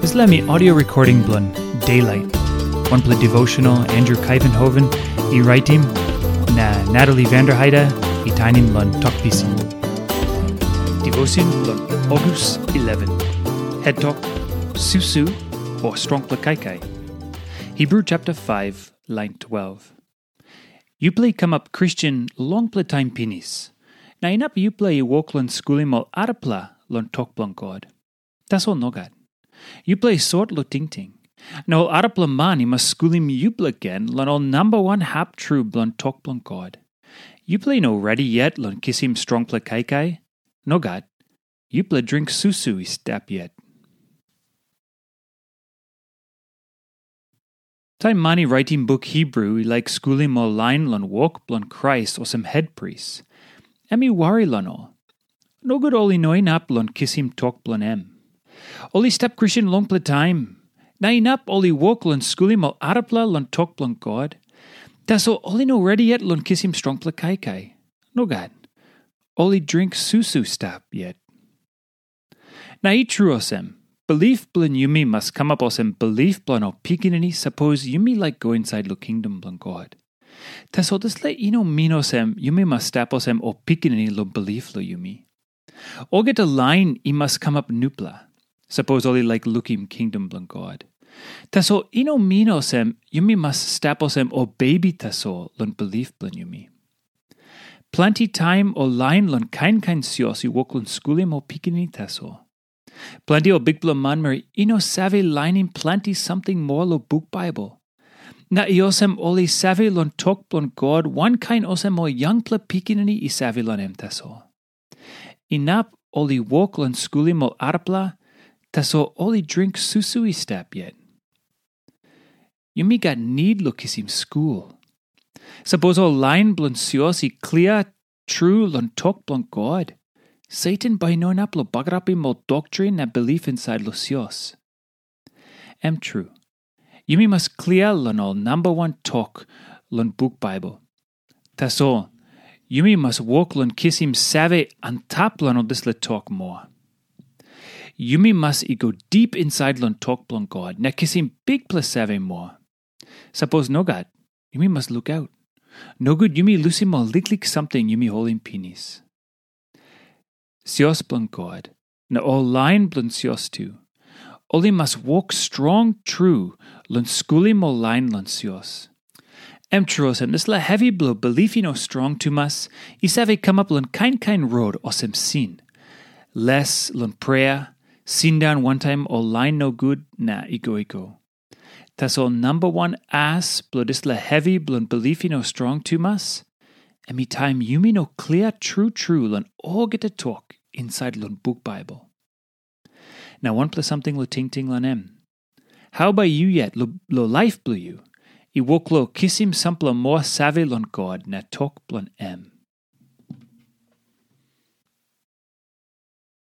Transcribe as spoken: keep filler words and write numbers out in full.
Dispela mi audio recording bilong Daylight, wanpela devotional Andrew Kaivenhoven i raitim, na Natalie Vanderheide i tainim long tok pisin. Devotion bilong August eleven. Head tok, susu o strongpela kaikai. Hebrew chapter five, line twelve. Yupela i kamap Kristen longpela taim pinis, na inap yupela i wok long skulim ol arapela long tok bilong God. Tasol nogat. Yupela i sot long tingting. Na ol arapela man i mas skulim yupela gen long ol namba wan hap tru bilong tok bilong God. Yupela i no redi yet long kisim strongpela kaikai. Nogat. Yupela dring susu i stap yet. Taim man i raitim buk Hebrew i laik skulim ol lain long wok bilong Krais olsem hetpris, em i wari long ol. Nogut ol i no inap long kisim tok bilong em. Ol i stap Kristen longpela taim, na inap ol i wok long skulim ol arapela long tok bilong God. Tasol ol i no redi yet long kisim strongpela kaikai. Nogat. Ol i dring susu stap yet. Na i tru olsem, bilip bilong yumi mas kamap olsem bilip bilong ol pikinini sapos yumi laik go insait long kingdom bilong God. Tasol dispela i no min olsem yumi mas stap olsem ol pikinini long bilip long yumi. Olgeta lain i mas kamap nupela, sapos ol i laik lukim kingdom bilong God. Tasol i no min olsem yumi mas stap olsem ol bebi tasol long bilip bilong yumi. Planti taim ol lain long kain kain sios i wok long skulim ol pikinini tasol. Planti ol bikpela manmeri i no save lainim planti samting moa long buk Baibel. Na i olsem ol i save long tok bilong God wankain olsem ol yangpela pikinini i save long em tasol. Inap ol i wok long skulim ol arapela, tasol ol i dring susu i stap yet. Yumi gat nid long kisim skul. Sapos ol lain bilong sios i klia tru long tok bilong God, Satan bai i no inap long bagarapim ol doktrin na bilip insait long sios. Em tru, yumi mas klia long ol namba wan tok long buk Baibel. Tasol, yumi mas wok long kisim save antap long ol dispela tok moa. Yumi mas i go dip insait long tok bilong God na kisim bikpela save moa. Sapos nogat, yumi mas lukaut. Nogut yumi lusim ol liklik samting yumi holim pinis. Sios bilong God, na ol lain bilong sios tu, ol i mas wok strong tru long skulim ol lain long sios. Em tru olsem, dispela hevi bilong bilip i no strong tumas i save kamap long kain kain rot olsem sin, les long prea, sindaun wantaim ol lain nogut na i go i go. Tasol namba wan as bilong dispela hevi bilong bilip i no strong tumas, em i taim yumi no klia tru tru long olgeta tok insait long buk Baibel. Na wanpela samting long tingting long em. Hau bai yu yet long laip bilong yu i wok long kisim sampela moa save long God na tok bilong em?